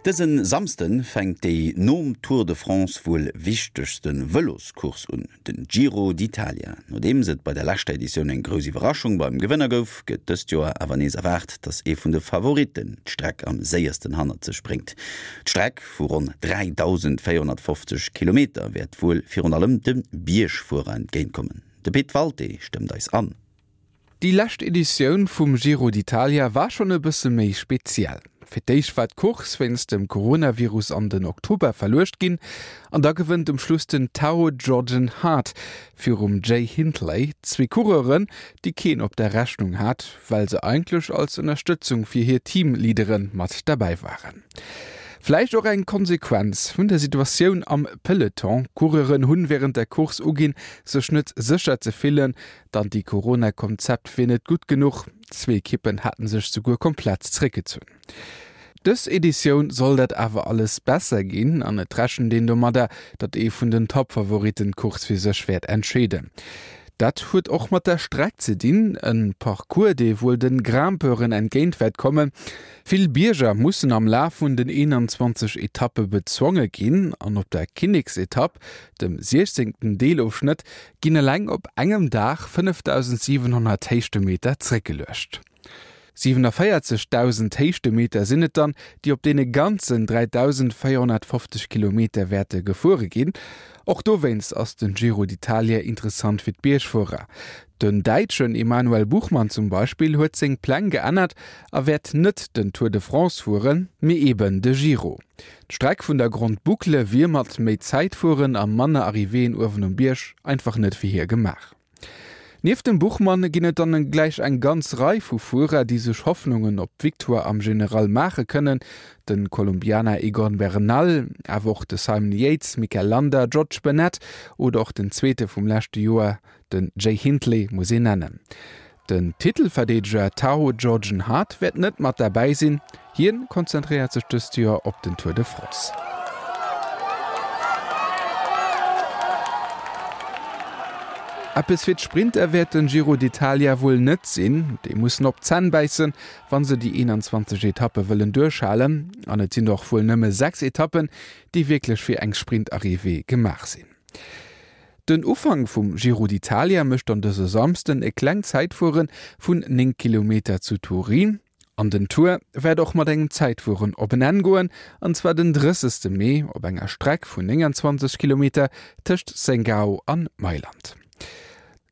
Dëse Samsden fänkt déi nom Tour de France wuel wichtegste Vëloscourse un, den Giro d'Italia. Nodeems et bei der leschter Editioun eng grouss Iwwerraschung beim Gewënner gouf, gëtt dëst Joer awer nees erwaart, datt ee vun de Favoritten d'Streck am séiersten hannert sech bréngt. D'Streck vu ronn 3.450 Kilometer wäert wuel virun allem de Biergfuerer entgéintkommen. De Pit Walté stëmmt eis an. Déi lescht Editioun vum Giro d'Italia war schonn e bësse méi speziell. Fir d'éischt war d'Course wéinst dem Coronavirus an den Oktober verluecht ginn an da gewënnt um Schluss den Tao Geoghegan Hart virum Jay Hindley, zwee Coureuren, déi keen op der Rechnung hat, well se eigentlech als Ënnerstëtzung fir hir Teamleadere mat derbäi waren. Vläicht och eng Konsequenz vun der Situatioun am Peloton, Coureuren hunn wärend der Course uginn, sech net sécher ze fillen, D'Anti-Corona-Konzept wier net gutt genuch, zwee Ekippen haten sech souguer komplett zréckgezunn. Dës Editioun soll dat awer alles besser ginn an et rechent een domadder, datt ee vun den Toppfavoritten d'Course fir sech wäert entscheeden. Dat huet och mat der Streck ze dinn, e Parcours, dee wuel de Grimpeuren entgéint wäert kommen. Vill Bierger mussen am Laf vun den 21 Etappe bezwonge ginn an op der Kinneksetapp, dem 16. Deelofschnëtt, ginn eleng op engem Dag 5.700 Héichtemeter zréckgeluecht. 47.000 Héichtemeter sinn et dann, déi op deene ganzen 3.450 Kilometer wäerte gefuere ginn. Och dowéinst ass den Giro d'Italia interessant fir d'Biergfuerer. Den Däitschen Emanuel Buchmann zum Beispill huet seng Pläng geännert a wäert net den Tour de France fueren, mee eben de Giro. D'Streck vun der Grande Boucle wier mat méi Zäitfueren a manner Arrivéeën uewen um Bierg einfach net fir hie gemaach. Nieft dem Buchmann ginn et dann gläich eng ganz Rei vu Fuerer, déi sech Hoffnungen op d'Victoire am General maache kënnen, de Kolumbianer Egan Bernal, awer och de Simon Yates, Mikel Landa, George Bennett oder och den Zweete vum leschte Joer, Den Jay Hindley muss een nennen. Den Titelverdeedeger Tao Georgen Hart wäert net mat derbäi sinn, hien konzentréiert sech dëst Joer op den Tour de France. Eppes fir d'Sprinter wäert den Giro d'Italia wuel net sinn. Déi mussen op d'Zänn bäissen, wa se déi 21 Etappe wëllen duerchhalen. An et sinn och wuel nëmme 6 Etappen, déi wierklech fir eng Sprintarrivée gemaach sinn. Den Ufank vum Giro d'Italia mécht dann dëse Samsden e klengt Zäitfuere vun 9 Kilometer zu Turin. An den Tour wäert och mat engem Zäitfueren op en Enn goen, an zwar den 30. Mee op enger Streck vun 29 Kilometer tëscht Sengao an Mailand.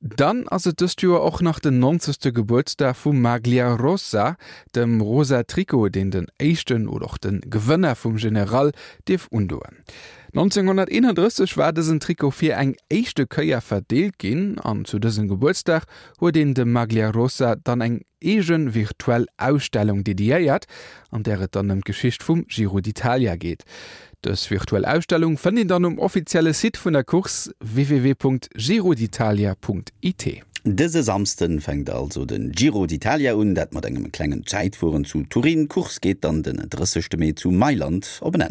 Dann ass et dëst Joer och nach den 90. Gebuertsdag vum Maglia Rosa, dem rosa Trikot, deen den éischten oder och de Gewënner vum General dierf undoen. 1931 war dësen Trikot fir eng éischte Kéier verdeelt ginn an zu dësem Gebuertsdag huet een dem Maglia Rosa dann eng eege virtuell Ausstellung dediéiert, an där et dann ëm d'Geschicht vum Giro d'Italia geet. Dës virtuell Ausstellung fënnt een dann um offizielle Site vun der Course www.giroditalia.it. Dëse Samsden fänkt also den Giro d'Italia un, dat mat engem klengen Zäitfueren zu Turin. D'Course geet dann den 30 Mee zu Mailand op en Enn.